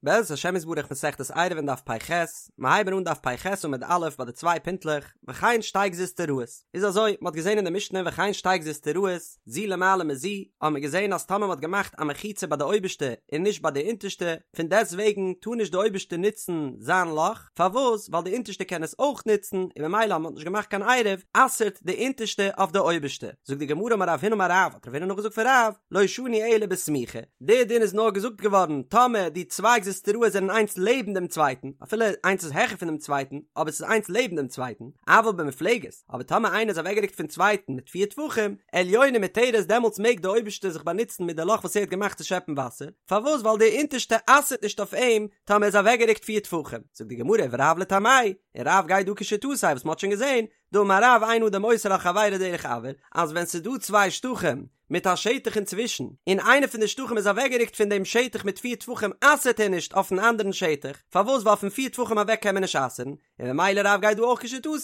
בעזרת השם יתברך מסכת עירובין דף פ"ח, מיר הייבן אן דף פ"ח עמוד א' ביי די צוויי פינטלעך, וכן שתי גזוזטראות, איז אזוי, מ'האט געזען אין די משנה וכן שתי גזוזטראות, זו למעלה מזו, האט מען געזען אז טאמער מ'האט געמאכט א מחיצה ביי די אויבערשטע און נישט ביי די אונטערשטע, פון דעסט וועגן טאר נישט די אויבערשטע נוצן זיין לאך, פארוואס? ווייל די אונטערשטע קען עס אויך נוצן, און ממילא אז מ'האט נישט געמאכט קיין עירוב, אסר'ט די אונטערשטע אויף די אויבערשטע. זאגט די גמרא אמר רב הונא אמר רב, האט רב הונא נאכגעזאגט פון רב, לא שנו אלא בסמוכה, די דין איז נאר געזאגט געווארן טאמער די צוויי גזוזטראות זענען איינס לעבן דעם צווייטן, אפילו איינס איז העכער פון דעם צווייטן, אבער ס'איז איינס לעבן דעם צווייטן, אבל במופלגת, אבער טאמער איינער איז אוועקגערוקט פון צווייטן מיט פיר טפחים, עליונה מותרת דעמאלטס מעג די אויבערשטע זיך באנוצן מיט די לאך וואס ער האט געמאכט צו שעפן וואסער, פארוואס ווייל די אונטערשטע אסר'ט נישט אויף אים טאמער ער איז אוועקגערוקט פיר טפחים, זאגט די גמרא ורב לטעמיה, און רב גייט דא כשיטתו וואס מ'האט שוין געזען, דאמר רב אין אדם אוסר על חברו דרך אויר, אז ווען ס'איז דא צוויי שטחים מיט א שטח אינצווישן, און איינע פון די שטחים איז אוועקגערוקט פון דעם שטח מיט פיר טפחים אסר'ט ער נישט אויפן אנדערן שטח, פארוואס ווייל פון פיר טפחים אוועק קען מען נישט אסר'ן, און ממילא רב גייט דא אויך כשיטתו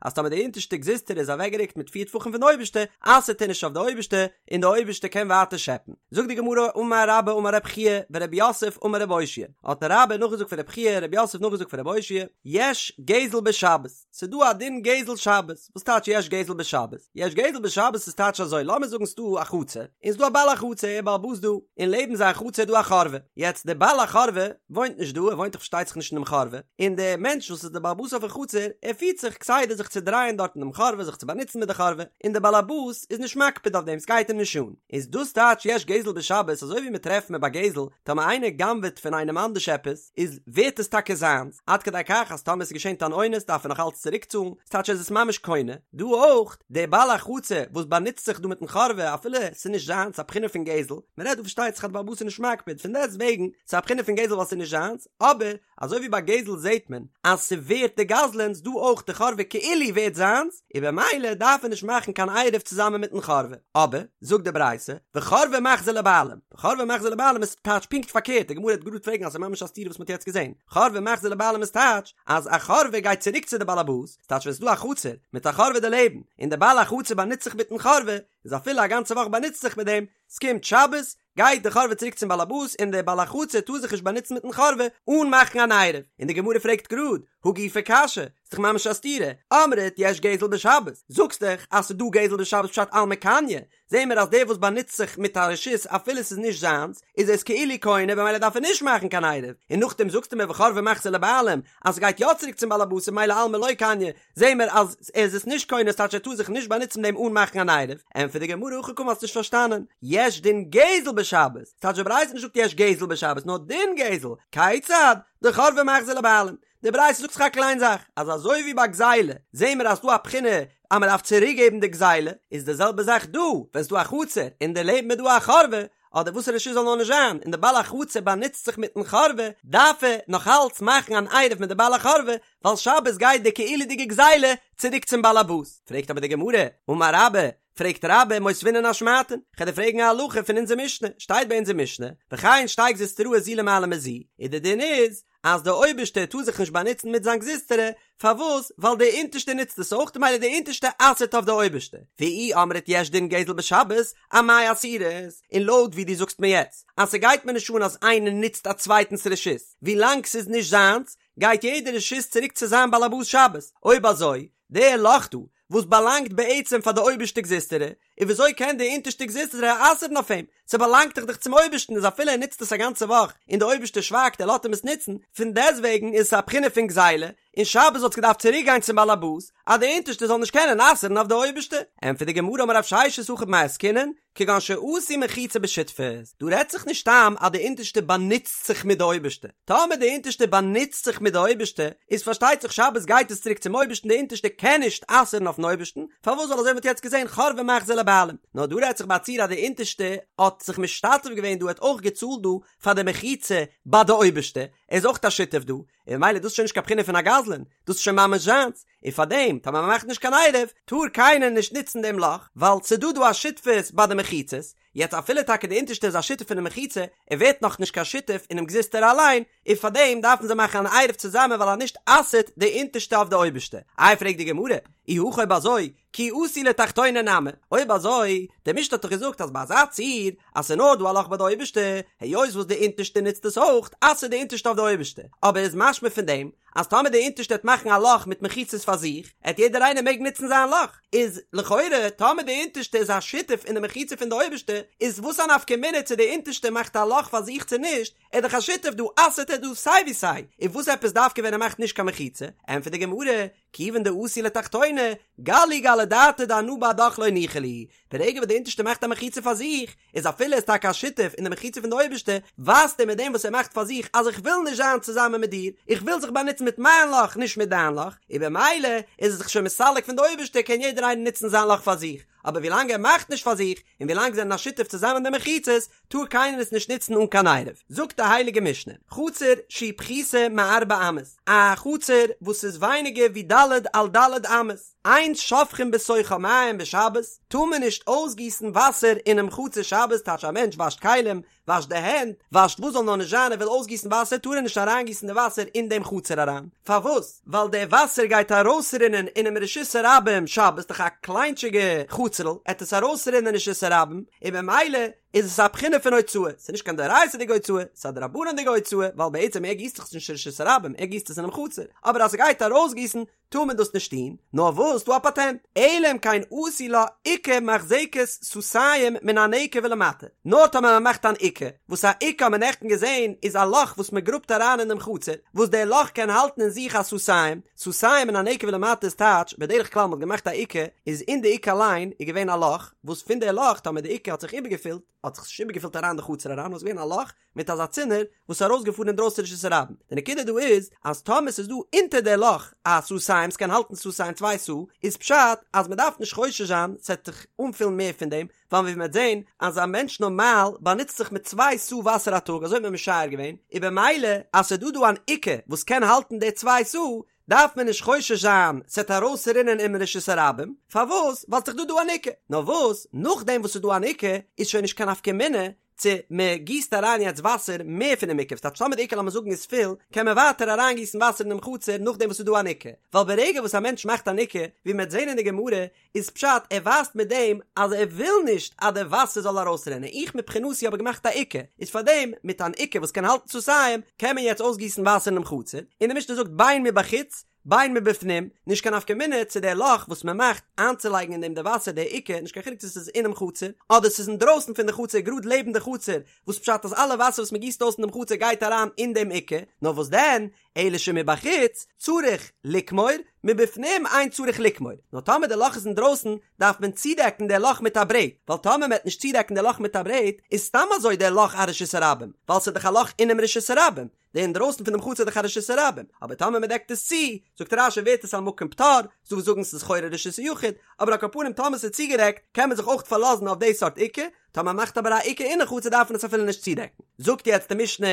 אז טאמער די אונטערשטע גזוזטרא איז אוועקגערוקט מיט פיר טפחים פון די אויבערשטע, אסר'ט ער נישט אויף די אויבערשטע, און די אויבערשטע קען ווייטער שעפן. זאגט די גמרא אמר רבה אמר רב חייא ורב יוסף אמר רב אושעיא, האט רבה נאכגעזאגט פון רב חייא רב יוסף נאכגעזאגט פון רב אושעיא, יש גזל בשבת, ס'דא א דין גזל שבת, וואס טייטש יש גזל בשבת? יש גזל בשבת איז טייטש אזוי, לאמיר זאגן ס'דא א חצר, און ס'דא א בעל החצר, ער בעל הבית דא, און לעבן זיין חצר איז דא א חורבה, יעצט דער בעל החורבה וואוינט נישט דא, ער וואוינט דאך פארשטייט זיך נישט אינעם חורבה, און דער מענטש וואס איז דער בעל הבית אויפן חצר, ער פירט זיך כסדר זיך צו דרייען דארט אינעם חורבה, זיך צו באנוצן מיט די חורבה, און דער בעל הבית איז נישט מקפיד אויף דעם, ס'גייט אים נישט אן. איז דאס טייטש יש גזל בשבת, אזוי ווי מ'טרעפט מען ביי גזל, טאמער איינער גנב'עט פון איינעם אנדערש עפעס, איז ווערט עס טאקע זיינס, עד כדי כך אז טאמער עס איז געשען אן אונס דארף ער נאך אלץ צוריק צאלן, ס'טייטש ער איז עס ממש קונה, דא אויך, דער בעל החצר וואס באנוצט זיך דא מיטן חורבה אפילו עס איז נישט זיינס, א בחינה פון גזל, מען רעדט דא פארשטייט זיך אז דער בעל הבית איז נישט מקפיד, פון דעסט וועגן, ס'איז א בחינה פון גזל ווייל ס'איז נישט זיינס, אבער, אזוי ווי ביי גזל זעט מען אז ס'ווערט די גזלן'ס, דא אויך די חורבה כאילו ווערט זיינס, און במילא דארף ער נישט מאכן קיין עירוב צוזאמען מיטן חורבה, אבער, זאגט די ברייתא, וחורבה מחזיר לבעלים. חורבה מחזיר לבעלים איז טייטש פונקט פארקערט, די גמרא וועט גראד פרעגן אז ס'איז ממש א סתירה וואס מ'האט יעצט געזען, חורבה מחזיר לבעלים איז טייטש אז א חורבה גייט צוריק צו די בעל הבית, ס'טייטש ווען ס'איז דא א חצר מיט א חורבה דערלעבן, און די בעל החצר באנוצט זיך מיטן חורבה, איז אפילו א גאנצע וואך באנוצט זיך מיט דעם, ס'קומט שבת, גייט די חורבה צוריק צום בעל הבית און דער בעל החצר טאר זיך נישט באנוצן מיטן חורבה אן מאכן אן עירוב, און די גמרא פרעגט גראד, הא גופא קשיא, ס'דאך ממש א סתירה, אמרת יש גזל בשבת, זאגסט דאך אז ס'איז דא גזל בשבת פשט אלמא קניא, זעהן מיר אז דער וואס באנוצט זיך מיט א רשות אפילו ס'איז נישט זיינס, איז עס כאילו קונה במילא דארף ער נישט מאכן קיין עירוב, און נאכדעם זאגסטו מיר וחורבה מחזיר לבעלים אז ס'גייט יא צוריק צום בעל הבית און ממילא אלמא לא קניא, זעהן מיר אז ער איז עס נישט קונה ס'טייטש ער טאר זיך נישט באנוצן מיט דעם אן מאכן אן עירוב, ענטפערט די גמרא הכי קאמר האסט נישט פארשטאנען, יש דין גזל בשבת, ס'טייטש די ברייתא נישט זאגט יש גזל בשבת נאר דין גזל, כיצד? דחורבה מחזיר לבעלים, די ברייתא זאגט זיך א קליין זאך, אז אזוי ווי ביי גזילה זעהן מיר אז ס'דא א בחינה אז מען דארף צוריק געבן די גזילה, איז די זעלבע זאך דא, ווען ס'דא א חצר און דערלעבן איז דא א חורבה, אדער וואס רשות זאל נאר נישט זיין, און די בעל החצר באנוצט זיך מיטן חורבה, דארף ער נאך אלץ מאכן אן עירוב מיט די בעל החורבה, ווייל שבת גייט די כאילו'דיגע גזילה צוריק צום בעל הבית. פרעגט אבער די גמרא, אמר רבה, פרעגט רבה מותבינן אשמעתין, כ'על דיר פרעגן א הלכה פון אונזער משנה, שטייט ביי אונזער משנה, וכן שתי גזוזטראות זו למעלה מזו, און די דין איז, אז דער אויבערשטער טאר זיך נישט באנוצן מיט זיין גזוזטרא, פארוואס? ווייל דער אונטערשטער נוצט עס אויך, ממילא דער אונטערשטער אסר'ט אויף דער אויבערשטער. ואי אמרת יש דין גזל בשבת, אמאי אסירת? און לויט ווי דו זאגסט מיר יעצט, אז ס'גייט מיר נישט אן אז איינער נוצט א צווייטנס רשות, ווילאנג ס'איז נישט זיינס, גייט יעדע רשות צוריק צו זיין בעל הבית שבת. אויב אזוי, דער לאך דא, וואס באלאנגט בעצם פאר די אויבערשטע גזוזטרא, און וויאזוי קען די אונטערשטע גזוזטרא אסר'ן אויף אים? ס'באלאנגט דאך דאך צום אויבערשטן איז אפילו ער נוצט עס א גאנצע וואך און די אויבערשטער שווייגט ער לאזט אים עס נוצן, פון דעסטוועגן איז עס א בחינה פון גזילה, און שבת וואלט עס געדארפט צוריק גיין צום בעל הבית אז די אונטערשטע זאל נישט קענען אסר'ן אויף די אויבערשטע. ענטפערט די גמרא אמר רב ששת הכא במאי עסקינן, כגון שעשו מחיצה בשותפות, דא רעדט זיך נישט סתם אז די אונטערשטע באנוצט זיך מיט די אויבערשטע, טאמער די אונטערשטע באנוצט זיך מיט די אויבערשטע, איז פארשטייט זיך שבת גייט עס צוריק צום אויבערשטן די אונטערשטע קען נישט אסר'ן אויפן אויבערשטן, פארוואס ווייל אזוי ווי מ'האט יעצט געזען חורבה מחזיר לבעלים, נאר דא רעדט זיך ביי א ציור אז די אונטערשטע האט זיך משתתף געווען דא האט אויך געצאלט דא פאר די מחיצה ביי די אויבערשטע, ער איז אויך א שותף דא, און ממילא דאס איז שוין נישט קיין בחינה פון א גזלן, דאס איז שוין ממש זיינס. און פארדעם טאמער מ'מאכט נישט קיין עירוב טאר קיינער נישט נוצן דעם לאך, ווייל ס'דא דא א שותפות ביי די מחיצות, יעצט אפילו טאקע די אונטערשטע איז א שותף פונעם מחיצה, ער ווערט נאך נישט קיין שותף אינעם גזוזטרא אליין, און פארדעם דארפן זיי מאכן אן עירוב צוזאמען ווייל אז נישט אסר'ט די אונטערשטע אויף די אויבערשטע. איי פרעגט די גמרא, אי הכי אויב אזוי, כי אתו לתחתונה נמי, אויב אזוי, די משנה האט דאך געזאגט אז ביי אזא ציור, אז ס'איז נאר דא א לאך ביי די אויבערשטע, היות וואס די אונטערשטע נוצט עס אויך, אסר'ט די אונטערשטע אויף די אויבערשטע, אבער איז משמע פון דעם, אז טאמער די אונטערשטע העט מאכן א לאך מיט מחיצות פאר זיך, העט יעדער איינער מעגן נוצן זיין לאך, איז לכאורה טאמער די אונטערשטע איז א שותף אין די מחיצה פון די אויבערשטע, איז וואס א נפקא מינה צו די אונטערשטע מאכט א לאך פאר זיך צו נישט, ער איז דאך א שותף דא אסר'ט ער דא סיי ווי סיי, און וואס עפעס דווקא ווען ער מאכט נישט קיין מחיצה? ענטפערט די גמרא, כיוון דאתו לתחתונה, גלו גלי דעתיה דאנא בהדך לא ניחא לי, ברגע וואס די אונטערשטע מאכט א מחיצה פאר זיך, איז אפילו ער איז טאקע א שותף אין די מחיצה פון די אויבערשטע, ווייזט ער מיט דעם וואס ער מאכט פאר זיך אז איך וויל נישט זיין צוזאמען מיט דיר, איך וויל זיך באנוצן מיט מיין לאך נישט מיט דיין לאך, און במילא איז ער זיך שוין מסלק פון די אויבערשטע קען יעדער איינער נוצן זיין לאך פאר זיך, אבער ווילאנג ער מאכט נישט פאר זיך, און ווילאנג זיי זענען א שותף צוזאמען אין די מחיצות, טאר קיינער עס נישט נוצן אן קיין עירוב. זאגט די הייליגע משנה, חצר שהיא פחותה מארבע אמות, א חצר וואס איז ווייניגער ווי ד' על ד' אמות, אין שופכין בתוכה מים בשבת, טאר מען נישט אויסגיסן וואסער אינעם חצר שבת, טייטש א מענטש וואשט כלים, וואשט די הענט, וואשט וואס זאל נאר נישט זיין ער וויל אויסגיסן וואסער טאר ער נישט אריינגיסן די וואסער אין דעם חצר אריין, פארוואס? ווייל די וואסער גייט ארויסרינען אינעם רשות הרבים שבת, דאך א קליינטשיגע חצר'ל, עט עס ארויסרינען אין רשות הרבים, און במילא איז עס א בחינה פון הוצאה, ס'איז נישט קיין דאורייתא'דיגע הוצאה, ס'איז א דרבנן'דיגע הוצאה, ווייל בעצם ער גיסט דאך עס נישט אין רשות הרבים, ער גיסט עס אינעם חצר, אבער אז ס'גייט ארויסגיסן טאר מען דאס נישט טון, נאר וואס ס'דא א פאטענט, אלא אם כן עשו לה עוקה מחזקת סאתים מן הנקב ולמטה, נאר טאמער מען מאכט אן עוקה, וואס א עוקה האט מען נעכטן געזען איז א לאך וואס מען גראבט אריין אינעם חצר, וואס דער לאך קען האלטן אין זיך א סאתים, סאתים מן הנקב ולמטה איז טייטש, בדרך כלל מען האט געמאכט א עוקה, איז אין די עוקה אליין איז געווען א לאך, וואס פון די לאך טאמער די עוקה האט זיך איבערגעפילט, האט זיך עס נישט איבערגעפילט אריין די חצר אריין, נאר עס איז געווען א לאך מיט אזא צינור וואס איז ארויסגעפארן אינדרויסן רשות הרבים. די נקודה דא איז אז טאמער ס'איז דא אונטער די לאך א סאתים, ס'קען האלטן סאתים צוויי סאה, איז פשט אז מ'דארף נישט חושש זיין ס'עט זיך אנפילן מער פון דעם, ווייל ווי מ'וועט זען אז א מענטש נארמאל באנוצט זיך מיט צוויי סאה וואסער א טאג אזוי האט מען משער געווען, און במילא אז ס'איז דא דא אן עוקה וואס קען האלטן די צוויי סאה, דארף מען נישט חושש זיין ס'עט ארויסרינען אין רשות הרבים, פארוואס? ווייל ס'דאך דא דא אן עוקה. נאר וואס, נאכדעם וואס ס'איז דא אן עוקה, איז שוין נישט קיין נפקא מינה צו מען גיסט אריין יעצט וואסער מער פונעם עוקה, ס'טייטש טאמער די עוקה לאמיר זאגן איז פול, קען מען ווייטער אריינגיסן וואסער אינעם חצר נאכדעם וואס ס'איז דא אן עוקה, ווייל ברגע וואס א מענטש מאכט אן עוקה, ווי מ'עט זען אין די גמרא, איז פשט ער ווייזט מיט דעם אז ער וויל נישט אז די וואסער זאל ארויסרינען, איך מבחינתי האב געמאכט א עוקה, איז פארדעם מיט אן עוקה וואס קען האלטן סאתים קען מען יעצט אויסגיסן וואסער אינעם חצר, און די משנה זאגט בין מבחוץ בין מבפנים, נישט קיין נפקא מינה צו דער לאך וואס מען מאכט איינצולייגן אין דעם די וואסער די עוקה, נישט קיין חילוק צו ס'איז אינעם חצר, אדער ס'איז אינדרויסן פון די חצר גראד לעבן די חצר, וואס פשט אז אלע וואסער וואס מען גיסט אויס אין דעם חצר גייט אריין אין דעם עוקה, נאר וואס דען, אלא שמבחוץ צריך לקמור, מבפנים אין צריך לקמור, נאר טאמער די לאך איז אינדרויסן דארף מען צודעקן די לאך מיט א ברעט, ווייל טאמער מען וועט נישט צודעקן די לאך מיט א ברעט איז סתם אזוי די לאך א רשות הרבים, ווייל ס'איז דאך א לאך אינעם רשות הרבים, די אינדרויסן פונעם חצר איז דאך א רשות הרבים, אבער טאמער מען דעקט עס צו, זאגט רש"י ווערט עס א מקום פטור, ס'דא וואס זאגן ס'איז לכאורה רשות היחיד, אבער על כל פנים טאמער ס'איז צוגעדעקט קען מען זיך אויך פארלאזן אויף די סארט עוקה, טאמער מ'מאכט אבער א עוקה אינעם חצר דארף מען עס אפילו נישט צודעקן. זאגט יעצט די משנה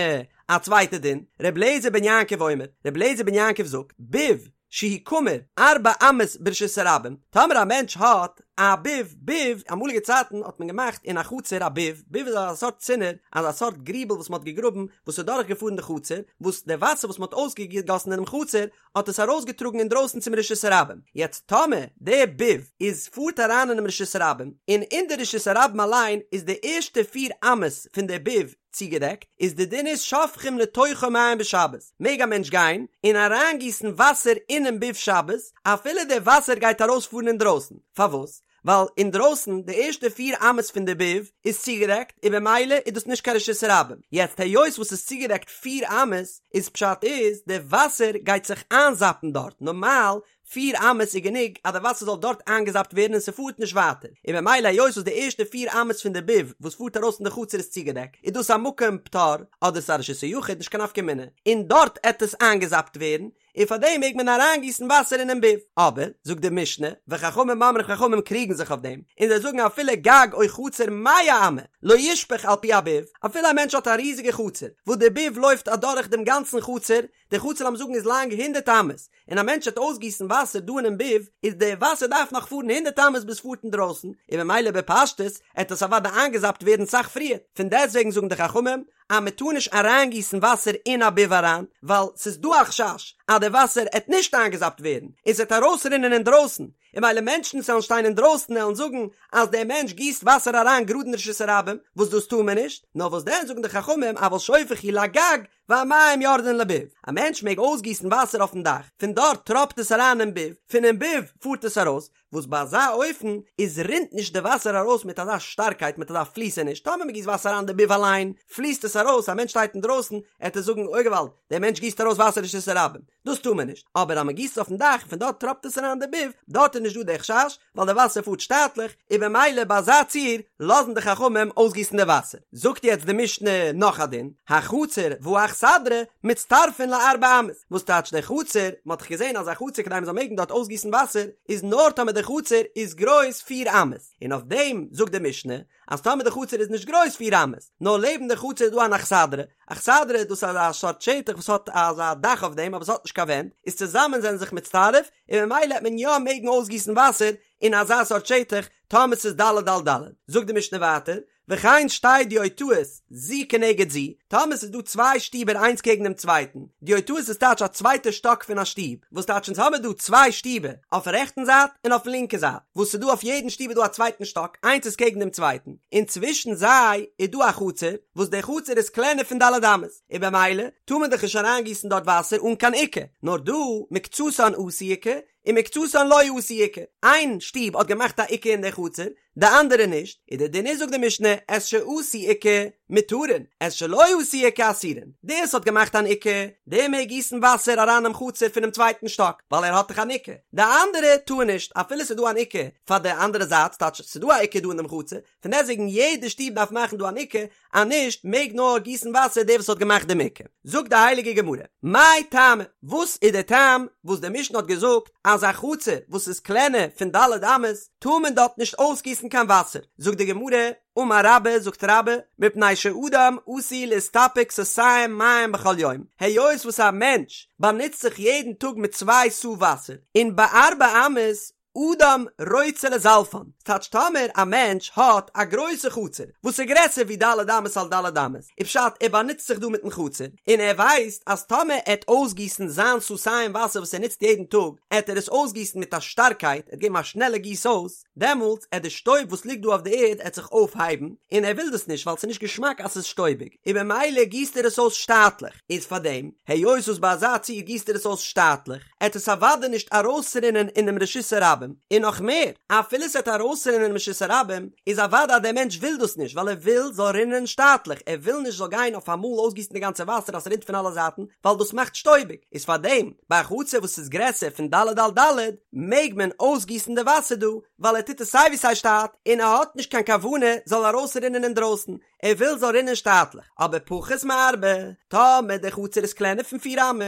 א צווייטע דין, ר' אליעזר בן יעקב אומר, ר' אליעזר בן יעקב זאגט, ביב שהוא קמור ארבע אמות ברשות הרבים, טאמער א מענטש האט א ביב, ביב, אמאליגע צייטן האט מען געמאכט אין א חצר א ביב, ביב איז אזא סארט צינור, אזא סארט גריבל וואס מען האט געגראבן, וואס איז דורך געפארן די חצר, וואס די וואסער וואס מען האט אויסגעגאסן אינעם חצר, האט עס ארויסגעטראגן אינדרויסן צום רשות הרבים, יעצט טאמער די ביב איז פארט אריין אינעם רשות הרבים, און אין די רשות הרבים אליין איז די ערשטע פיר אמות פון די ביב צוגעדעקט, איז די דין איז שופכים לתוכו מים בשבת, מעג א מענטש גיין און אריינגיסן וואסער אינעם ביב שבת, אפילו די וואסער גייט ארויספארן אינדרויסן, פארוואס? ווייל אינדרויסן די ערשטע פיר אמות פון די ביב איז צוגעדעקט און במילא איז דאס נישט קיין רשות הרבים, יעצט היות וואס ס'איז צוגעדעקט פיר אמות איז פשט איז די וואסער גייט זיך איינזאפן דארט, נארמאל פיר אמות איז גענוג אז די וואסער זאל דארט איינגעזאפט ווערן און ס'פארט נישט ווייטער, און במילא היות וואס די ערשטע פיר אמות פון די ביב וואס פארט ארויס אין די חצר איז צוגעדעקט איז דאס א מקום פטור אדער ס'איז א רשות היחיד נישט קיין נפקא מינה און דארט עט עס איינגעזאפט ווערן. און פאר דעם מעג מען אריינגיסן וואסער אינעם ביב. אבער, זאגט די משנה, וחכמים אומרים חכמים קריגן זיך אויף דעם, און זיי זאגן אפילו גג או חצר מאה אמה לא ישפוך על פי הביב, אפילו א מענטש האט א ריזיגע חצר, וואס די ביב לויפט אדורך דעם גאנצן חצר, די חצר לאמיר זאגן איז לאנג הונדערט אמות, און א מענטש וועט אויסגיסן וואסער דא אינעם ביב, איז די וואסער דארף נאך פארן הונדערט אמות ביז פארט אינדרויסן, און ממילא בפשטות עט עס אוודאי איינגעזאפט ווערן סאך פריער, פון דעסטוועגן זאגן די חכמים אז מען טאר נישט אריינגיסן וואסער אין א ביב אריין, ווייל ס'איז דא א חשש אז די וואסער עט נישט איינגעזאפט ווערן, און ס'עט ארויסרינען אינדרויסן, און ממילא מענטשן וואס וועלן שטיין אינדרויסן עלן זאגן אז דער מענטש גיסט וואסער אריין גראד אין רשות הרבים, וואס דאס טאר מען נישט, נאר וואס דען זאגן די חכמים אבל שופך הוא לגג והמים יורדין לביב, א מענטש מעג אויסגיסן וואסער אויפן דאך, פון דארט טראפט עס אריין אין ביב, פונעם ביב פארט עס ארויס, וואס ביי אזא אופן איז רינט נישט די וואסער ארויס מיט אזא שטארקייט מיט אזא פליסעניש, טאמער מען גיסט וואסער אריין די ביב אליין פליסט עס ארויס, א מענטש שטייט אינדרויסן עט ער זאגן אוי געוואלד דער מענטש גיסט ארויס וואסער אין רשות הרבים, דאס טאר מען נישט, אבער אז מען גיסט עס אויפן דאך און פון דארט טראפט עס אריין די ביב, דארט איז נישט דא די חשש, ווייל די וואסער פארט שטאטליך, און במילא ביי אזא ציור לאזן די חכמים אויסגיסן די וואסער. זאגט יעצט די משנה נאך א דין, החצר והאכסדרה מצטרפין לארבע אמות, וואס טייטש די חצר, מען האט דאך געזען אז א חצר כדי מען זאל מעגן דארט אויסגיסן וואסער איז נאר טאמער די חצר איז גרויס פיר אמות, און אויף דעם זאגט די משנה אז טאמער די חצר איז נישט גרויס פיר אמות, נאר לעבן די חצר איז דא אן אכסדרה, אכסדרה דאס איז אזא סארט שטח וואס האט אזא דאך אויף דעם אבער עס האט נישט קיין ווענט, איז צוזאמען זענען זיך מצטרף, און ממילא העט מען יא מעגן אויסגיסן וואסער אין אזא סארט שטח טאמער ס'איז ד' על ד'. זאגט די משנה ווייטער, וכן שתי דיוטאות זו כנגד זו, טאמער ס'איז דא צוויי שטיבער איינס קעגן דעם צווייטן, דיוטאות איז טייטש א צווייטע שטאק פון א שטוב, וואס טייטש אונז האמער דא צוויי שטיבער, אויפן רעכטן זייט און אויפן לינקע זייט, וואס ס'איז דא אויף יעדן שטוב איז דא א צווייטן שטאק, איינס איז קעגן דעם צווייטן, און צווישן זיי איז דא א חצר, וואס די חצר איז קלענער פון ד' אמות, און במילא טאר מען דאך נישט אריינגיסן דארט וואסער אן קיין עוקה, נאר דא מקצתן עשו עוקה ומקצתן לא עשו עוקה, איין שטוב האט געמאכט א עוקה אין די חצר, די אנדערע נישט, און די דין איז זאגט די משנה את שעשו עוקה מותרין, את שלא עשו עוקה אסורין, דער וואס האט געמאכט אן עוקה, דער מעג גיסן וואסער אריין אינעם חצר פונעם צווייטן שטאק, ווייל ער האט דאך אן עוקה, די אנדערע טאר נישט, אפילו ס'איז דא אן עוקה פאר די אנדערע זייט, ס'טייטש ס'איז דא א עוקה דא אין דעם חצר, פון דעסטוועגן יעדע שטוב דארף מאכן דא אן עוקה, אז נישט מעג נאר גיסן וואסער דער וואס האט געמאכט דעם עוקה. זאגט די הייליגע גמרא, מאי טעמא, וואס איז דער טעם וואס די משנה האט געזאגט אז א חצר וואס איז קלענער פון ד' אמות טאר מען דארט נישט אויסגיסן קיין וואסער? זאגט די גמרא, אמר רבה, זאגט רבה, מפני שאדם עשוי להסתפק סאתים מים בכל יום, היות וואס א מענטש באנוצט זיך יעדן טאג מיט צוויי סאה וואסער, און בארבע אמות אדם רוצה לזלפן, ס'טייטש טאמער א מענטש האט א גרויסע חצר וואס איז גרעסער ווי ד' אמות על ד' אמות, איז פשט ער באנוצט זיך דא מיטן חצר, און ער ווייסט אז טאמער ער עט אויסגיסן זיין סאתים וואסער וואס ער נוצט יעדן טאג, עט ער עס אויסגיסן מיט א שטארקייט, ער עט געבן א שנעלע גיס אויס, דעמאלטס עט די שטויב וואס ליגט דא אויף די ערד עט זיך אויפהייבן, און ער וויל דאס נישט ווייל ס'איז נישט געשמאק אז ס'איז שטויביג, און במילא גיסט ער עס אויס שטאטליך, איז פארדעם, היות וואס ביי אזא ציור גיסט ער עס אויס שטאטליך, עט עס אוודאי נישט ארויסרינען אינעם רשות הרבים, און נאך מער, אפילו ס'עט ארויסרינען אינעם רשות הרבים, איז אוודאי אז דער מענטש וויל דאס נישט, ווייל ער וויל זאל רינען שטאטליך, ער וויל נישט זאל גיין אויף אמאל אויסגיסן די גאנצע וואסער אז ס'רינט פון אלע זייטן, ווייל דאס מאכט שטויביג, איז פארדעם, ביי א חצר וואס איז גרעסער פון ד' על ד', מעג מען אויסגיסן די וואסער דא, ווייל ער טוט עס סיי ווי סיי שטאט, און ער האט נישט קיין כוונה זאל ארויסרינען אינדרויסן, ער וויל זאל רינען שטאטליך, אבער פחות מארבע, טאמער די חצר איז קלענער פון פיר אמות,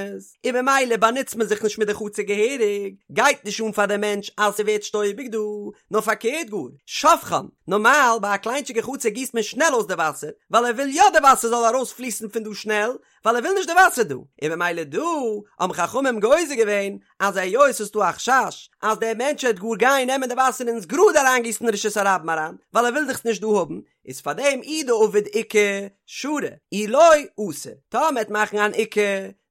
און במילא באנוצט מען זיך נישט מיט די חצר געהעריג, גייט נישט אן פאר די מענטש אז ס'ווערט שטויביג דא, נאר פארקערט גאר, שופכן, נארמאל ביי א קליינטשיגע חצר גיסט מען שנעל אויס די וואסער, ווייל ער וויל יא די וואסער זאל ארויס פליסן פון דא שנעל, ווייל ער וויל נישט די וואסער דא, און במילא דא האבן חכמים גוזר געווען אז היות ס'איז דא א חשש אז דער מענטש וועט גאר גיין נעמען די וואסער און עס גראד אריינגיסן אין רשות הרבים אריין, ווייל ער וויל דאך עס נישט דא האבן, איז פאר דעם אי דעביד עוקה שרי, אי לא אסור, טאמער מ'עט מאכן אן עוקה,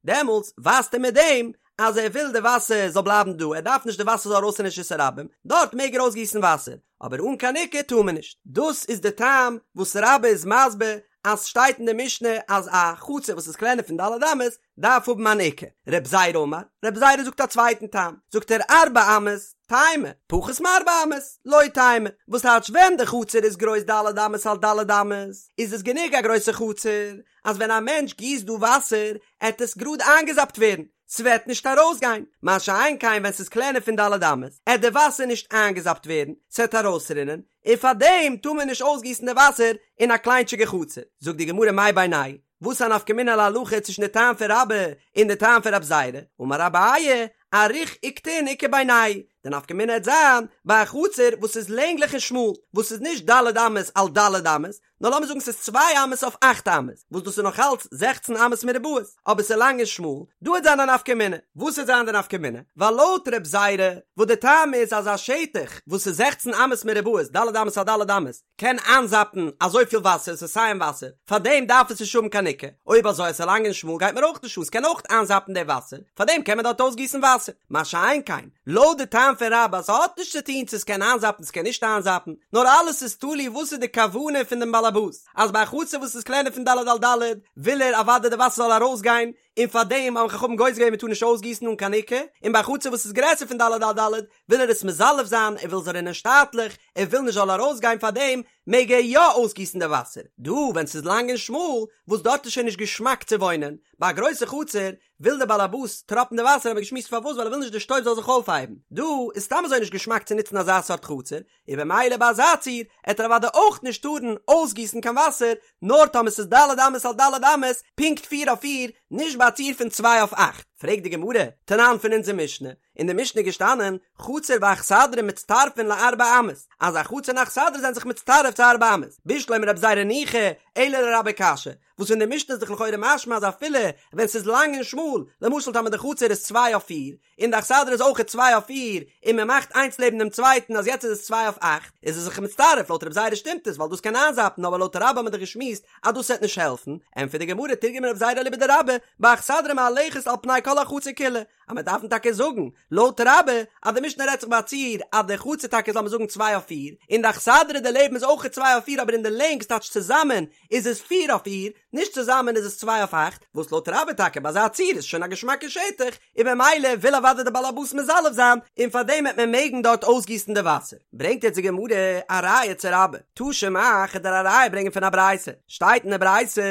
דעמאלטס ווייזט ער מיט דעם אז ער וויל די וואסער זאל בלייבן דא, ער דארף נישט די וואסער זאל ארויס אין רשות הרבים, דארט מעג ער אויסגיסן וואסער, אבער אן קיין עוקה טאר מען נישט. דאס איז די טעם וואס רבה איז מסביר אז שטייט אין די משנה אז א חצר וואס איז קלענער פון ד' אמות דארף האבן אן עוקה. רב זירא אמר, רב זירא זאגט א צווייטן טעם, זאגט ער ארבע אמות, תימא, פחות מארבע אמות, לא תימא, וואס טייטש ווען די חצר איז גרויס ד' אמות על ד' אמות, איז עס גענוג א גרויסע חצר, אז ווען א מענטש גיסט דא וואסער, עט עס גראד איינגעזאפט ווערן, ס'וועט נישט ארויסגיין, מה שאין כן ווען ס'איז קלענער פון ד' אמות, עט די וואסער נישט איינגעזאפט ווערן, ס'עט ארויסרינען, און פארדעם טאר מען נישט אויסגיסן די וואסער אין א קליינטשיגע חצר. זאגט די גמרא מאי בינייהו? וואס איז א נפקא מינה להלכה צווישן די טעם פון רבה און די טעם פון רב זירא? אמר אביי, אריך וקטין איכא בינייהו, די נפקא מינה העט זיין ביי א חצר וואס איז לענגליך און שמאל, וואס איז נישט ד' אמות על ד' אמות, נאר לאמיר זאגן ס'איז צוויי אמות אויף אכט אמות, וואס דאס איז נאך אלץ זעכצן אמות מרובעות, אבער ס'איז לאנג און שמאל, דא העט זיין א נפקא מינה. וואס העט זיין די נפקא מינה? ווייל לויט רב זירא, וואס די טעם איז אז א שטח וואס איז זעכצן אמות מרובעות, ד' אמות על ד' אמות, קען איינזאפן אזויפיל וואסער, ס'איז סיים וואסער, פארדעם דארף עס נישט האבן קיין עוקה, אויב אזוי אז ס'איז לאנג און שמאל גייט מיר אויך נישט אן, ס'קען אויך איינזאפן די וואסער, פארדעם קען מען דארט אויסגיסן וואסער. מה שאין כן, לויט די טעם פון רבה אז ס'האט נישט צו טון צו ס'קען איינזאפן ס'קען נישט איינזאפן, נאר אלעס איז תלוי וואס איז די כוונה פון דעם באלעבאס, אז ביי א חצר וואס איז קלענער פון ד' על ד' וויל ער אוודאי די וואסער זאל ארויסגיין, און פארדעם האבן חכמים גוזר געווען מ'טאר נישט אויסגיסן אן קיין עוקה, און ביי א חצר וואס איז גרעסער פון ד' על ד' וויל ער עס מזלף זיין, ער וויל זאל רינען שטאטליך, ער וויל נישט זאל ארויסגיין פארדעם מעג ער יא אויסגיסן די וואסער, דא ווען ס'איז לאנג און שמאל, וואס דארט איז שוין נישט געשמאק צו וואוינען, ביי א גרויסע חצר וויל דער באלעבאס טראפן די וואסער האבן מיר געשמועסט פארוואס ווייל ער וויל נישט די שטויב זאל זיך אויפהייבן, דא איז סתם אזוי נישט געשמאק צו נוצן אזא סארט חצר, און במילא ביי אזא ציור עט ער אוודאי אויך נישט טארן אויסגיסן קיין וואסער, נאר טאמער ס'איז ד' אמות על ד' אמות, פונקט פיר אויף פיר, נישט ביי א ציור פון צוויי אויף אכט. פרעגט די גמרא, תנן פון אונזער משנה, אין די משנה איז געשטאנען, חצר ואכסדרה מצטרפין לארבע אמות, אז א חצר און אכסדרה זענען זיך מצטרף צו ארבע אמות, בשלמא לרב זירא ניחא, אלא לרבה קשיא, וואס פון די משנה איז דאך לכאורה משמע אז אפילו ווען ס'איז לאנג און שמאל, למשל טאמער די חצר איז צוויי אויף פיר, און די אכסדרה איז אויכעט צוויי אויף פיר, און מען מאכט איינס לעבן דעם צווייטן אז יעצט איז עס צוויי אויף אכט, איז עס זיך מצטרף, לויט רב זירא שטימט עס ווייל דאס קען איינזאפן אבער לויט רבה האט מען דאך געשמועסט אז דאס וועט נישט העלפן, ענטפערט די גמרא תרגמה רב זירא אליבא דרבה, באכסדרה מהלכת על פני כל החצר כולה, אז מען דארף טאקע זאגן לויט רבה אז די משנה רעדט זיך ביי א ציור אז די חצר טאקע איז לאמיר זאגן צוויי אויף פיר, און די אכסדרה דערלעבן איז אויכעט צוויי אויף פיר אבער אין די לענג ס'טייטש צוזאמען איז עס פיר אויף פיר, נישט צוזאמען איז עס צוויי אויף אכט, וואס לויט רבה טאקע ביי אזא ציור איז שוין א געשמאקע שטח, און במילא וויל אוודאי די בעל הבית מזלף זיין, און פארדעם וועט מען מעגן דארט אויסגיסן די וואסער. ברענגט יעצט די גמרא א ראיה צו רבה, תא שמע, כ'על דיר א ראיה ברענגען פון א ברייתא, שטייט אין די ברייתא,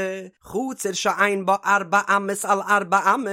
חצר שאין בה ארבע אמות על ארבע אמות,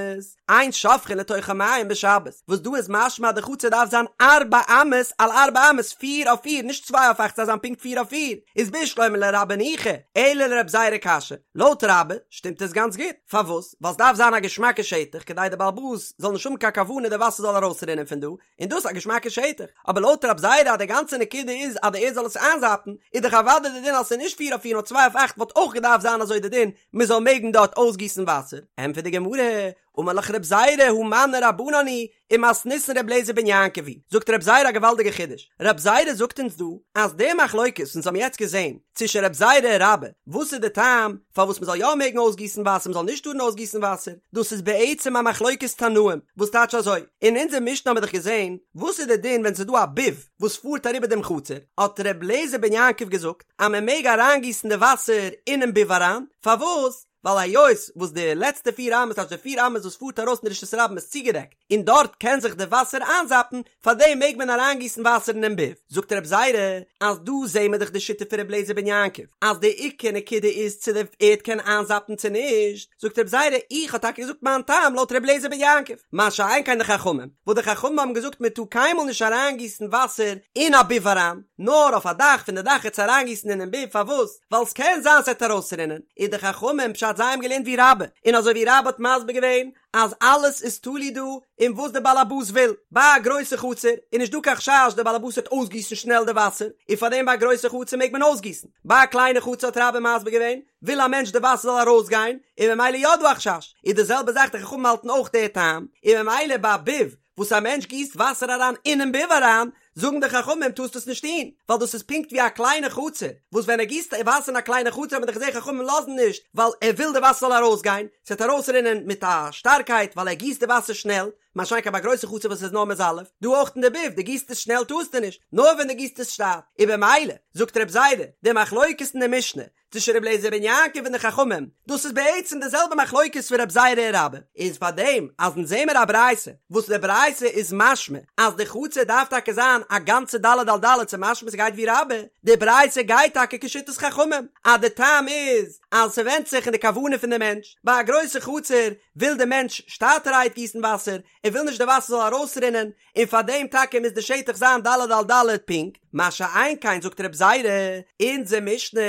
אין שופכין לתוכה מים בשבת, וואס דא איז משמע אז די חצר דארף זיין ארבע אמות על ארבע אמות, פיר אויף פיר, נישט צוויי אויף אכט, ס'דארף זיין פונקט פיר אויף פיר, איז בשלמא לרבה ניחא, אלא לרב זירא קשיא, לויט רבה שטימט עס גאנץ גוט, פארוואס? ווייל ס'דארף זיין א געשמאקע שטח כדי די בעל הבית זאל נישט האבן קיין כוונה די וואסער זאל ארויסרינען פון דא, און דאס איז א געשמאקע שטח, אבער לויט רב זירא אז די גאנצע נקודה איז אז די ערד זאל עס איינזאפן, איז דאך אוודאי די דין אז ס'איז נישט פיר אויף פיר נאר צוויי אויף אכט וואלט אויך געדארפט זיין אזוי די דין מ'זאל מעגן דארט אויסגיסן וואסער, ענטפערט די גמרא, אמר לך רב זירא הא מני רבנן היא ומתניתין ר' אליעזר בן יעקב היא, זאגט רב זירא א געוואלדיגע חידוש, רב זירא זאגט אונז דא אז די מחלוקת וואס אונז האבן יעצט געזען צווישן רב זירא און רבה, וואס איז די טעם פארוואס מ'זאל יא מעגן אויסגיסן וואסער מ'זאל נישט טארן אויסגיסן וואסער, דאס איז בעצם א מחלוקת תנאים, וואס טייטש אזוי, אין אונזער משנה האבן מיר דאך געזען וואס איז די דין ווען ס'איז דא א ביב וואס פארט אריבער דעם חצר, האט ר' אליעזר בן יעקב געזאגט אז מ'מעג אריינגיסן די וואסער אינעם ביב אריין, פארוואס? ווייל היות וואס די לעצטע פיר אמות טייטש די פיר אמות וואס פארט ארויס אין רשות הרבים איז צוגעדעקט און דארט קען זיך די וואסער איינזאפן, פארדעם מעג מען אריינגיסן וואסער אינעם ביב. זאגט רב זירא אז דא זעהן מיר דאך די שיטה פון ר' אליעזר בן יעקב אז די עיקר נקודה איז צו די ערד קען איינזאפן צו נישט, זאגט רב זירא איך האב טאקע געזאגט מיין טעם לויט ר' אליעזר בן יעקב, מה שאין כן די חכמים, וואס די חכמים האבן געזאגט מען טאר קיינמאל נישט אריינגיסן וואסער אין א ביב אריין, נאר אויף א דאך פון די דאך עס אריינגיסן אינעם ביב, פארוואס? ווייל ס'קען זיין ס'עט ארויסרינען, איז די חכמים פשט זיי האבן געלערנט ווי רבה, און אזוי ווי רבה האט מסביר געווען אז אלעס איז תלוי דא אין וואס די באלעבאס וויל, ביי א גרויסע חצר איז נישט דא קיין חשש די באלעבאס וועט אויסגיסן שנעל די וואסער, און פארדעם ביי א גרויסע חצר מעג מען אויסגיסן, ביי א קליינע חצר האט רבה מסביר געווען, וויל א מענטש די וואסער זאל ארויסגיין, און ממילא יא דא א חשש, איז די זעלבע זאך די חכמים האלטן אויך די טעם, און ממילא ביי א ביב וואס א מענטש גיסט וואסער אריין אינעם ביב אריין, זאגן די חכמים טארסט עס נישט טון, ווייל דאס איז פונקט ווי א קליינע חצר, וואס ווען ער גיסט וואסער אין א קליינע חצר האט מען דאך געזען חכמים לאזן נישט, ווייל ער וויל די וואסער זאל ארויסגיין, ס'וועט ארויסרינען מיט א שטארקייט ווייל ער גיסט די וואסער שנעל, מה שאין כן ביי א גרויסע חצר וואס איז נאר מזלף, דא אויך אין די ביב, דו גיסט עס שנעל טארסטו נישט, נאר ווען דו גיסט עס שטאט, און במילא, זאגט רב זירא, די מחלוקת אין די משנה, צווישן רבי אליעזר בן יעקב און די חכמים, דאס איז בעצם די זעלבע מחלוקת פון רב זירא און רבה, איז פאר דעם אז אונז זעמער א ברייתא וואס די ברייתא איז משמע אז די חצר דארף טאקע זיין א גאנצע ד' על ד' ס'איז משמע ס'גייט ווי רבה, די ברייתא גייט טאקע כשיטת חכמים אז די טעם איז אז ס'ווענדט זיך אין די כוונה פון די מענטש, ביי א גרויסע חצר וויל די מענטש שטאטערהייט גיסן וואסער, ער וויל נישט די וואסער זאל ארויסרינען, און פאר דעם טאקע מוז די שטח זיין ד' על ד' פונקט, מה שאין כן זאגט רב זירא, אונזער משנה,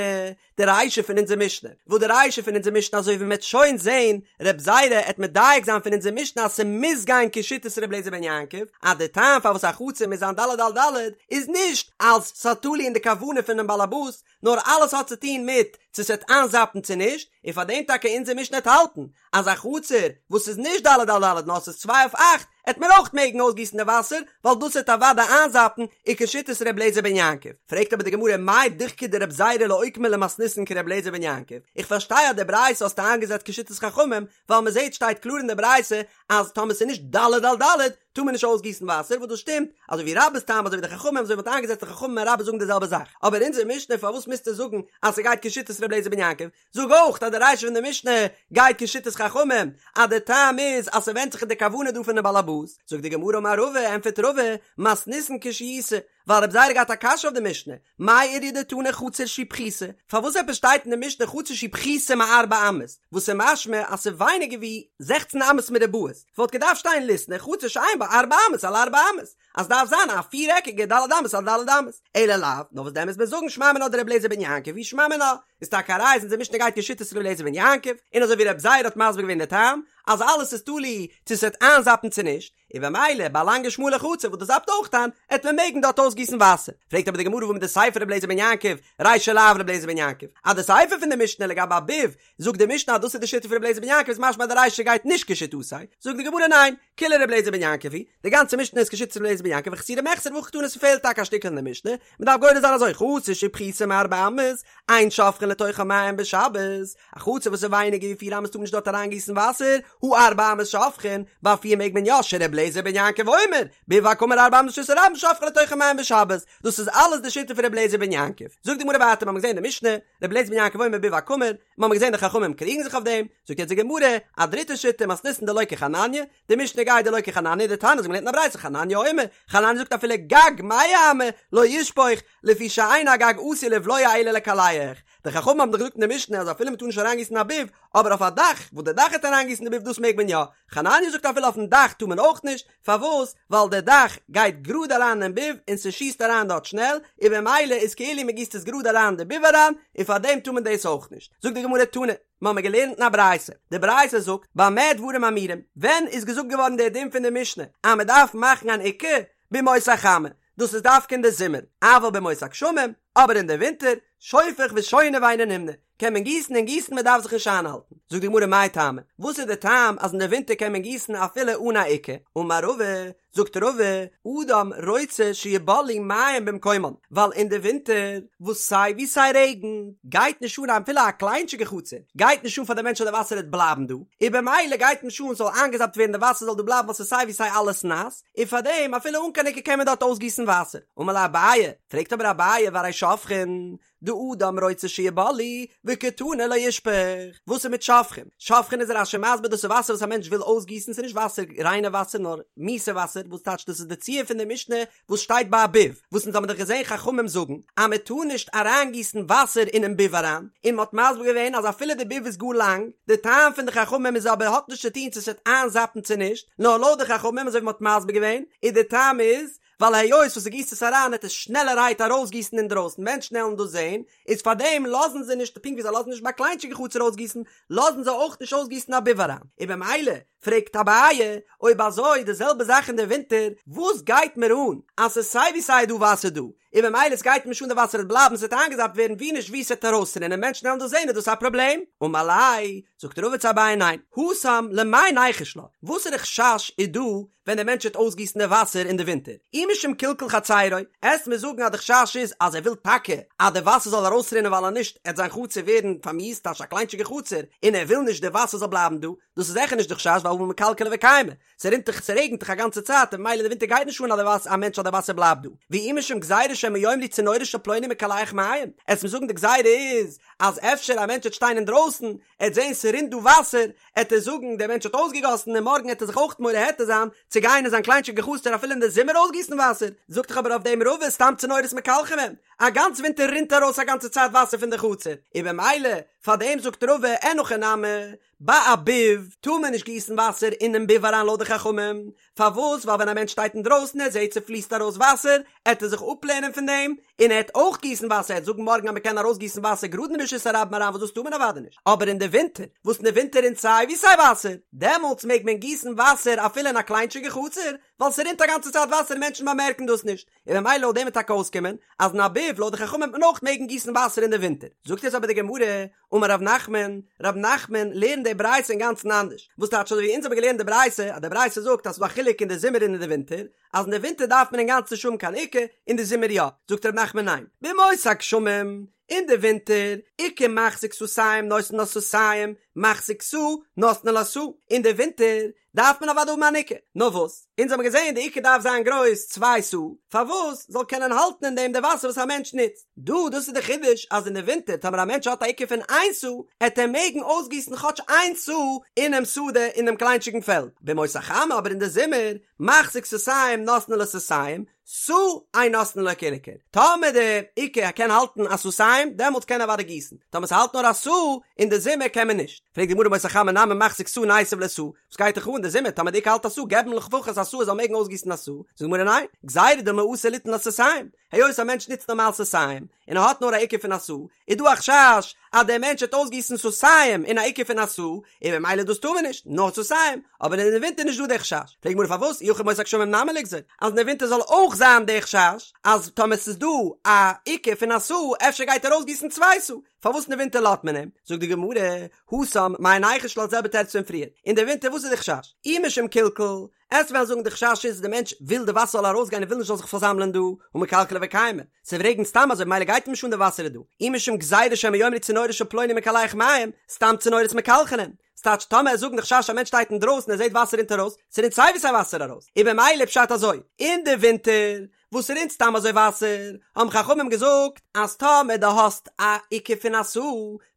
די רישא פון אונזער משנה, וואס די רישא פון אונזער משנה אזוי ווי מ'עט שוין זעהן, רב זירא עט מדייק זיין פון אונזער משנה אז ס'מוז גיין כשיטת ר' אליעזר בן יעקב, אז די טעם פארוואס א חצר מוז זיין ד' על ד' איז נישט אלס ס'איז תלוי אין די כוונה פונעם באלעבאס, נאר אלעס האט צו טון מיט צו ס'וועט איינזאפן צו נישט, און פאר דעם טאקע אונזער משנה עט האלטן אז א חצר וואס איז נישט ד' על ד' נאר ס'איז צוויי אויף אכט עט מען אויך מעגן אויסגיסן די וואסער ווייל דאס עט אוודאי איינזאפן און כשיטת ר' אליעזר בן יעקב. פרעגט אבער די גמרא מאי דוחקיה דרב זירא לאוקמא למתניתין כר' אליעזר בן יעקב, איך פארשטיי אז די ברייתא האסטו איינגעזעצט כשיטת חכמים ווייל מ'זעט שטייט קלאר אין די ברייתא אז טאמער ס'איז נישט ד' על ד' טאר מען נישט אויסגיסן וואסער וואס דאס שטימט אזוי ווי רבה'ס טעם אזוי ווי די חכמים אזוי ווי מ'האט איינגעזעצט די חכמים און רבה זאגן די זעלבע זאך אבער אונזער משנה פארוואס מוזטו זאגן אז ס'גייט כשיטת ר' אליעזר בן יעקב זאג אויך אז די רישא פון די משנה גייט כשיטת חכמים אז די טעם איז אז ס'ווענדט זיך אין די כוונה דא פונעם בעל הבית זאגט די גמרא אמר רבא ענטפערט רבא מתניתין קשיתא ווייל רב זירא האט געהאט א קשיא אויף די משנה, מאי איריא דתני חצר שהיא פחותה, פארוואס עפעס שטייט אין די משנה חצר שהיא פחותה מארבע אמות, וואס איז משמע אז ס'איז ווייניגער ווי זעכצן אמות מרובעות, ס'וואלט געדארפט שטיין ליתני חצר שאין בה ארבע אמות על ארבע אמות, אז ס'דארף זיין א פיר עקיגע ד' אמות על ד' אמות, אלא לאו, נאר וואס דען מוז מען זאגן שמע מינה דרבי אליעזר בן יעקב היא שמע מינה, איז טאקע א ראיה אז אונזער משנה גייט כשיטת רבי אליעזר בן יעקב, און אזוי ווי רב זירא האט מסביר געווען די טעם, אז אלעס איז תלוי צו ס'וועט איינזאפן צו נישט, און במילא ביי א לאנגע שמאלע חצר וואס דאס זאפט אויך איין, עט מען מעגן דארט אויסגיסן וואסער. פרעגט אבער די גמרא והא מדסיפא רבי אליעזר בן יעקב, רישא לאו רבי אליעזר בן יעקב, אז די סיפא פון די משנה לגבי א ביב, זאגט די משנה אז דאס איז די שיטה פון רבי אליעזר בן יעקב איז משמע אז די רישא גייט נישט כשיטתו, זאגט די גמרא ניין, כולה רבי אליעזר בן יעקב היא, די גאנצע משנה איז כשיטת רבי אליעזר בן יעקב וחסורי מחסרא והכי קתני ס'פעלט טאקע א שטיקל אין די משנה, מ'דארף גורס זיין אזוי חצר שפחותה מארבע אמות, אין שופכין לתוכה מים בשבת, א חצר וואס איז ווייניגער ווי פיר אמות טאר מען נישט דארט אריינגיסן וואסער, הא ארבע אמות שופכין, ביי פיר מעג מען יא, שר' אליעזר בן יעקב אומר, ביב הקמור ארבע אמות לרשות הרבים שופכין לתוכו מים בשבת, דאס איז אלעס די שיטה פון ר' אליעזר בן יעקב. זאגט די גמרא ווייטער, מ'האמיר געזען אין די משנה, ר' אליעזר בן יעקב אומר ביב הקמור, מ'האמיר געזען די חכמים קריגן זיך אויף דעם, זאגט יעצט די גמרא, א דריטע שיטה, מתניתין דלא כחנניה, די משנה גייט דלא כחנניה, דתניא אזוי מ'לערנט אין א ברייתא, חנניה אומר, חנניה זאגט אפילו גג מאה אמה לא ישפוך, לפי שאין הגג עשוי לבלוע אלא לקלח, די חכמים האבן דאך געזאגט אין די משנה אז אפילו מ'טאר נישט אריינגיסן א ביב, אבער אויף א דאך, וואס די דאך העט אריינגיסן די ביב דאס מעג מען יא, חנניה זאגט אפילו אויפן דאך טאר מען אויך נישט, פארוואס? ווייל די דאך גייט גראד אריין אין ביב און ס'שיסט אריין דארט שנעל, און במילא איז כאילו מ'גיסט עס גראד אריין אין די ביב אריין, און פארדעם טאר מען דאס אויך נישט. זאגט די גמרא תנא, מ'האמיר געלערנט אין א ברייתא, די ברייתא זאגט, במה דברים אמורים, ווען איז געזאגט געווארן דער דין פון די משנה אז מ'דארף מאכן אן עוקה? בימות החמה, דאס איז דווקא אין די זומער, אבל בימות הגשמים, אבער אין די ווינטער, שופך ושונה ואינו נמנע, קען מען גיסן און גיסן מען דארף זיך נישט איינהאלטן. זאגט די גמרא מאי טעמא, וואס איז די טעם אז אין די ווינטער קען מען גיסן אפילו אן א עוקה? אמר רבא, זאגט רבא, אדם רוצה שיבלעו מים במקומן, ווייל אין די ווינטער וואס סיי ווי סיי רעגן, גייט נישט אן אפילו א קליינטשיגע חצר, גייט נישט אן פאר די מענטש אז די וואסער וועט בלייבן דא, און במילא גייט נישט אן ס'זאל איינגעזאפט ווערן די וואסער זאל דא בלייבן ווייל ס'איז סיי ווי סיי אלעס נאס, און פאר דעם אפילו אן קיין עוקה קען מען דארט אויסגיסן וואסער. אמר ליה אביי, פרעגט אבער אביי והרי שופכין, דאדם רוצה שיבלעו, וקתני לא ישפוך. וואס איז מיט שופכין? שופכין איז רש"י מסביר דאס איז וואסער וואס א מענטש וויל אויסגיסן, ס'איז נישט וואסער ריינע וואסער נאר מיאוסע וואסער, וואס טייטש דאס איז די ציור פון די משנה וואס שטייט ביי א ביב, וואס אונז האבן דאך געזען חכמים זאגן אז מען טאר נישט אריינגיסן וואסער אינעם ביב אריין, און מען האט מסביר געווען אז אפילו די ביב איז גאר לאנג, די טעם פון די חכמים איז אבער האט נישט צו טון צו עס וועט איינזאפן צו נישט, נאר לויט די חכמים אזוי ווי מען האט מסביר געווען, איז די טעם איז ווייל היות וואס דו גיסט עס אריין וועט עס שנעלערהייט ארויסגיסן אינדרויסן, מענטשן עלן דאס זען, איז פארדעם לאזן זיי נישט, פונקט ווי זיי לאזן נישט ביי קליינטשיגע חצר אויסגיסן, לאזן זיי אויך נישט אויסגיסן א ביב אריין, און במילא פרעגט אביי, אויב אזוי די זעלבע זאך אין די ווינטער, וואס גייט מיר אן אז ס'איז סיי ווי סיי דא וואסער דא, און במילא עס גייט מיר נישט אן די וואסער וועט בלייבן ס'וועט איינגעזאפט ווערן ווי נישט ווי ס'וועט ארויסרינען מענטשן וועלן דאס זען איז דאס א פראבלעם? אמר ליה, זאגט רבא צו אביי ניין, התם למאי ניחוש לה, וואסערע חשש איז דא ווען דער מענטש וועט אויסגיסן די וואסער אין די ווינטער, אי משום קלקול חצרו, עסט מיר זאגן אז די חשש איז אז ער וויל טאקע אז די וואסער זאל ארויסרינען ווייל אז נישט עט זיין חצר ווערן פארמיאוסט טייטש א קליינטשיגע חצר און ער וויל נישט די וואסער זאל בלייבן דא, דאס איז זיכער נישט די חשש ווייל הא מקלקלי וקיימא, ס'רינט דאך ס'רעגנט דאך א גאנצע צייט און ממילא אין די ווינטער גייט נישט אן אז די וואסער א מענטש אז די וואסער בלייבט דא, ואי משום גזירה שמא יאמרו צינורו של פלוני מקלח מים, עסט מיר זאגן די גזירה איז אז אפשר א מענטש וועט שטיין אינדרויסן ער וועט זען ס'רינט דא וואסער, עט ער זאגן דער מענטש האט אויסגעגאסן און מארגן עט ער זיך אויך מורה היתר זיין צו גיין אין זיין קליינטשיגע חצר אפילו אין די זומער אויסגיסן וואסער, זאגט דאך אבער אויף דעם רבא סתם צינורות מקלחים הם, א גאנץ ווינטער רינט ארויס א גאנצע צייט וואסער פון די חצר, און במילא. פארדעם זאגט רבא אין הכי נמי, ביי א ביב טאר מען נישט גיסן וואסער אינעם ביב אריין לויט די חכמים, פארוואס? ווייל ווען א מענטש שטייט אינדרויסן ער זעט ס'פליסט ארויס וואסער, עט ער זיך אפלערנען פון דעם, און ער עט אויך גיסן וואסער, ער עט זאגן מארגן אז מ'קען ארויסגיסן וואסער גראד אין רשות הרבים אריין וואס דאס טאר מען אוודאי נישט, אבער אין די ווינטער, וואס אין די ווינטער רינט סיי ווי סיי וואסער, דעמאלטס מעג מען גיסן וואסער אפילו אין א קליינטשיגע חצר, ווייל ס'רינט א גאנצע צייט וואסער און מענטשן באמערקן דאס נישט, און ממילא לויט דעם וועט טאקע אויסקומען אז אין א ביב לויט די חכמים וועט מען אויך מעגן גיסן וואסער אין די ווינטער. זאגט יעצט אבער די גמרא, אמר רב נחמן, רב נחמן לערנט די ברייתא אינגאנצן אנדערש, וואס טייטש אזוי ווי אונז האבן געלערנט די ברייתא, אז די ברייתא זאגט אז ס'איז דא א חילוק אין די זומער און אין די ווינטער, אז אין די ווינטער דארף מען אינגאנצן נישט האבן קיין עוקה, אין די זומער יא, זאגט רב נחמן ניין, בימות הגשמים, אין די ווינטער, עוקה מחזיק סאתים נותנין לה סאתים, מחזיק סאה נותנין לה סאה, אין די ווינטער דארף מען אוודאי האבן אן עוקה, נאר וואס? אונז האבן געזען די עוקה דארף זיין גרויס צוויי סאה, פארוואס? זאל קענען האלטן אין דעם די וואסער וואס א מענטש נוצט. דא, דאס איז די חידוש אז אין די ווינטער טאמער א מענטש האט א עוקה פון איין סאה, עט ער מעגן אויסגיסן כאטש איין סאה אינעם שדה אין דעם קליינטשיגן פעלד. בימות החמה אבער אין די זומער, מחזיק סאתים נותנין לו סאתים, סאה אין נותנין לו כעיקר. טאמער די עוקה קען האלטן א סאתים, דעמאלטס קען ער אוודאי גיסן. טאמער ס'האלט נאר א סאה, אין די זומער קען מען נישט. פרעגט די גמרא בימות החמה נמי מחזיק סאה ניתיב ליה סאה, וואס גייט דיך אן די זומער טאמער די עוקה האלט א סאה געב אים לפחות א סאה ער זאל מעגן אויסגיסן א סאה, זאגט די גמרא ניין, גזירה דילמא אתי ליתן לה סאתים, היות א מענטש נוצט נארמאל סאתים, און ער האט נאר א עוקה פון א סאה, איז דא א חשש אז דער מענטש וועט אויסגיסן סאתים אין א עוקה פון א סאה, און ממילא דאס טאר מען נישט, נאר סאתים, אבער אין די ווינטער איז נישט דא דער חשש, פרעגט די גמרא פארוואס אי הכי בימות הגשמים נמי ליגזור, אז אין די ווינטער זאל אויך זיין דער חשש אז טאמער ס'איז דא א עוקה פון א סאה אפשר גייט ער אויסגיסן צוויי סאה, פארוואס אין די ווינטער לאזט מען אים? זאגט די גמרא, התם, מאי ניחוש לה, זעלבע תירוץ פון פריער, אין די ווינטער וואס איז די חשש? אי משום קלקול, עסט וועלן זאגן די חשש איז די מענטש וויל די וואסער זאל ארויסגיין און וויל נישט זאל זיך פארזאמלען דא, הא מקלקלי וקיימי, ס'רעגנט סתם אזוי ממילא גייט אים נישט אן די וואסער איז דא, אי משום גזירה שמא יאמרו צינורו של פלוני מקלח מים, סתם צינורות מקלחינן, ס'טייטש טאמער עסט זאגן די חשש א מענטש שטייט אינדרויסן ער זעט וואסער רינט ארויס, ס'רינט סיי ווי סיי וואסער ארויס, איז במילא פשט אזוי, אין די ווינטער וואס ס'רינט סתם אזוי וואסער, האבן חכמים געזאגט אז טאמער דו האסט א עוקה פון א סאה,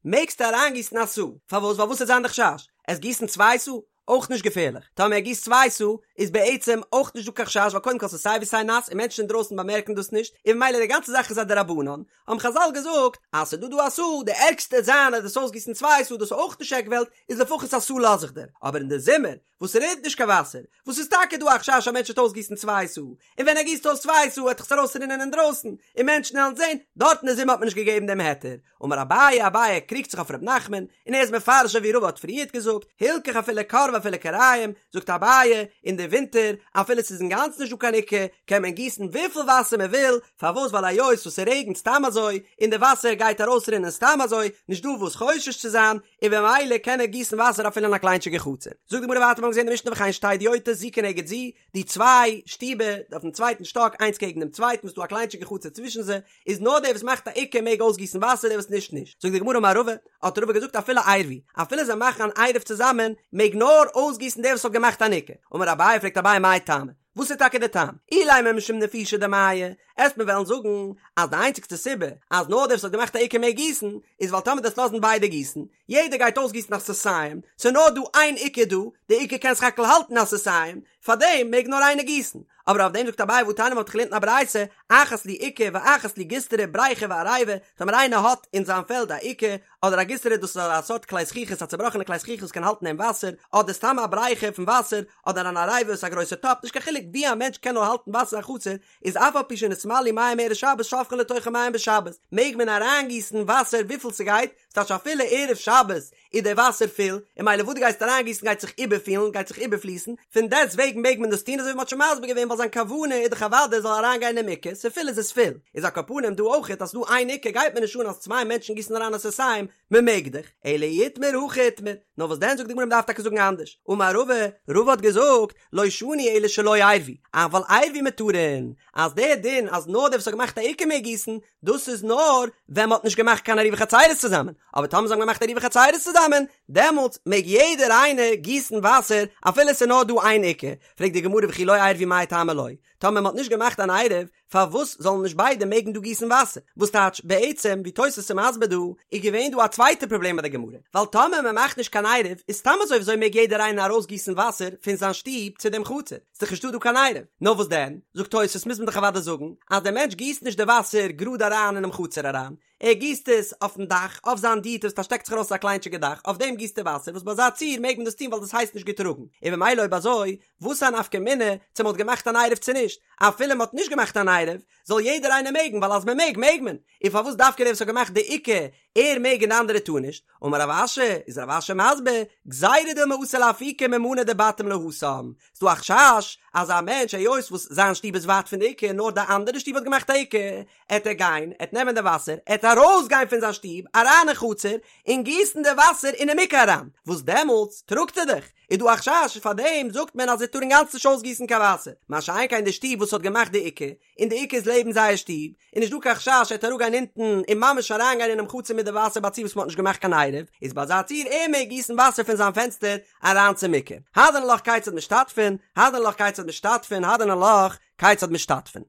מעגסטו אריינגיסן א סאה, פארוואס ווייל וואס וועט זיין די חשש? עסט גיסן צוויי סאה? אויך נישט געפערליך, טאמער ער גיסט צוויי סאה איז בעצם אויך נישט דא קיין חשש ווייל קודם כל ס'איז סיי ווי סיי נאס און מענטשן אינדרויסן באמערקן דאס נישט און ממילא די גאנצע זאך איז א דרבנן, האבן חזל געזאגט אז ס'איז דא דא א סאה, די ערגסטע וועט זיין אז דו'סט אויסגיסן צוויי סאה דאס איז אויך נישט עק וועלט, איז לפחות א סאה לאז איך דיר, אבער אין די זומער וואס ס'רינט נישט קיין וואסער, וואס איז טאקע דא א חשש א מענטש וועט אויסגיסן צוויי סאה, און ווען ער גיסט אויס צוויי סאה וועט דאך עס ארויסרינען אינדרויסן און מענטשן וועלן זען, דארט אין די זומער האט מען נישט געגעבן דעם היתר, אמר אביי, אביי קריגט זיך אויף ר' נחמן, און ער איז מפרש אזוי ווי רבא האט פריערט געזאגט, הלכך אפילו כור ואפילו כוריים, זאגט אביי, אין די ווינטער, אפילו ס'איז אינגאנצן נישט דא קיין עוקה, קען מען גיסן וויפיל וואסער מען וויל, פארוואס ווייל היות וואס ס'רעגנט סתם אזוי, און די וואסער גייט ארויסרינען סתם אזוי, נישט דא וואס חושש צו זיין, און במילא קען ער גיסן וואסער אפילו אין א קליינטשיגע חצר. זאגט די גמרא ווייטער מיר האבן געזען די משנה וכן שתי הדיוטות זו כנגד זו, די צוויי שטיבער אויפן צווייטן שטאק איינס קעגן דעם צווייטן וואס איז דא א קליינטשיגע חצר צווישן זיי, איז נאר דער וואס מאכט א עוקה מעג אויסגיסן וואסער דער וואס נישט נישט. זאגט די גמרא אמר רבא, האט רבא געזאגט אפילו עירבו, אפילו זיי מאכן אן עירוב צוזאמען, מעג נאר אויסגיסן דער וואס האט געמאכט אן עוקה. אמר אביי, פרעגט אביי מאי טעמא, וואס איז טאקע דער טעם? אילימא משום נפישי דמיא, עסט מיר וועלן זאגן אז די איינציגסטע סיבה אז נאר דער וואס האט געמאכט א עוקה מעג גיסן, איז ווייל טאמער דו'סט לאזן ביידע גיסן, יעדער גייט אויסגיסן א סאתים, ס'איז נאר דא איין עוקה דא, די עוקה קען סך הכל האלטן א סאתים, פארדעם מעג נאר איינער גיסן. אבער אויף דעם זאגט אביי והתניא מ'האט געלערנט אין א ברייתא, אחת לי עוקה ואחת לי גיסטרא בריכה ועריבה, טאמער איינער האט אין זיין פעלד א עוקה אדער א גיסטרא דאס איז א סארט כלי זכוכית א צובראכענע כלי זכוכית וואס קען האלטן אין וואסער, אדער סתם א בריכה פון וואסער, אדער אן עריבה וואס איז א גרויסע טאפ, נישט קיין חילוק ווי א מענטש קען נאר האלטן וואסער אין חצר, איז אף על פי שנתמלאו מים מערב שבת שופכין לתוכן מים בשבת, מעג מען אריינגיסן וואסער וויפיל ס'גייט, ס'טייטש אפילו ערב שבת איז דער וואסער פול, און ממילא וואס דו גייסט אריינגיסן גייט זיך איבערפילן, גייט זיך איבערפליסן, פון דעסט וועגן מעג מען דאס טון אזוי ווי מ'האט שוין מסביר געווען ווייל זיין כוונה איז דאך אוודאי עס זאל אריינגיין אין עוקה, ס'פול איז עס פול, איז על כל פנים דא אויכעט אז ס'דא איין עוקה גייט מיר נישט אן אז צוויי מענטשן גיסן אריין א סאתים, מ'מעג דאך, אלא אי איתמר הכי איתמר, נאר וואס דען זאגט די גמרא מ'דארף טאקע זאגן אנדערש, אמר רבא, רבא האט געזאגט, לא שנו אלא שלא עירבו, אבל עירבו מותרין, אז דער דין אז נאר דער וואס האט געמאכט א עוקה מעג גיסן, דאס איז נאר ווען מ'האט נישט געמאכט קיין עירובי חצירות צוזאמען, אבער טאמער זיי האבן געמאכט עירובי חצירות צוזאמען, דעמאלטס מעג יעדער איינער גיסן וואסער אפילו עס איז נאר דא איין עוקה, פרעגט די גמרא וכי לא עירבו מאי טעמא לא, טאמער מ'האט נישט געמאכט אן עירוב, פארוואס זאלן נישט ביידע מעגן דא גיסן וואסער? וואס טייטש בעצם ווי תוס' איז מסביר דא, איז געווען דא א צווייטע פראבלעם ביי די גמרא, ווייל טאמער מ'מאכט נישט קיין עירוב איז סתם אזוי וויאזוי מעג יעדער איינער ארויסגיסן וואסער פון זיין שטוב צו דעם חצר? ס'איז דאך נישטא דא קיין עירוב. נאר וואס דען? זאגט תוס' מוז מען דאך אוודאי זאגן אז דער מענטש גיסט נישט די וואסער גראד אריין אינעם חצר אריין, ער גיסט עס אויפן דאך, אויף זיין דיוטא וואס שטעקט זיך ארויס א קליינטשיגע דאך, אויף דעם גיסט ער וואסער, וואס ביי אזא ציור מעג מען דאס טון ווייל דאס הייסט נישט געטראגן, און במילא אויב אזוי, וואס א נפקא מינה צו מען האט געמאכט אן עירוב צו נישט, אפילו מען האט נישט געמאכט אן עירוב, זאל יעדער איינער מעגן ווייל אז מען מעג מעג מען, און פארוואס דווקא דער וואס האט געמאכט די עוקה ער מעג און די אנדערע טאר נישט, אמר רב אשי, איז רב אשי מסביר, גזירה דילמא אתי לאפוקי ממנא דבתים להתם, ס'דא א חשש אז א מענטש היות וואס זיין שטוב איז ווייט פון די עוקה נאר די אנדערע שטוב האט געמאכט א עוקה, עט ער גיין, עט נעמען די וואסער, עט ארויס גיין פון זיין שטוב אריין אין חצר און גיסן די וואסער אינעם עוקה אריין, וואס דעמאלטס טראגט ער דאך, איז דא א חשש פאר דעם זאגט מען אז ער טאר אינגאנצן נישט אויסגיסן קיין וואסער, מה שאין כן די שטוב וואס האט געמאכט די עוקה, און די עוקה איז לעבן זייער שטוב, איז נישט דא קיין חשש ער וועט אראפגיין אונטן און ממש אריינגיין אינעם חצר מיט די וואסער ביי א ציור וואס מען האט נישט געמאכט קיין עירוב, איז ביי אזא ציור ער מעג גיסן וואסער פון זיין פענסטער אריין צום עוקה. הדרן עלך כיצד משתתפין, הדרן עלך כיצד משתתפין, הדרן עלך כיצד משתתפין.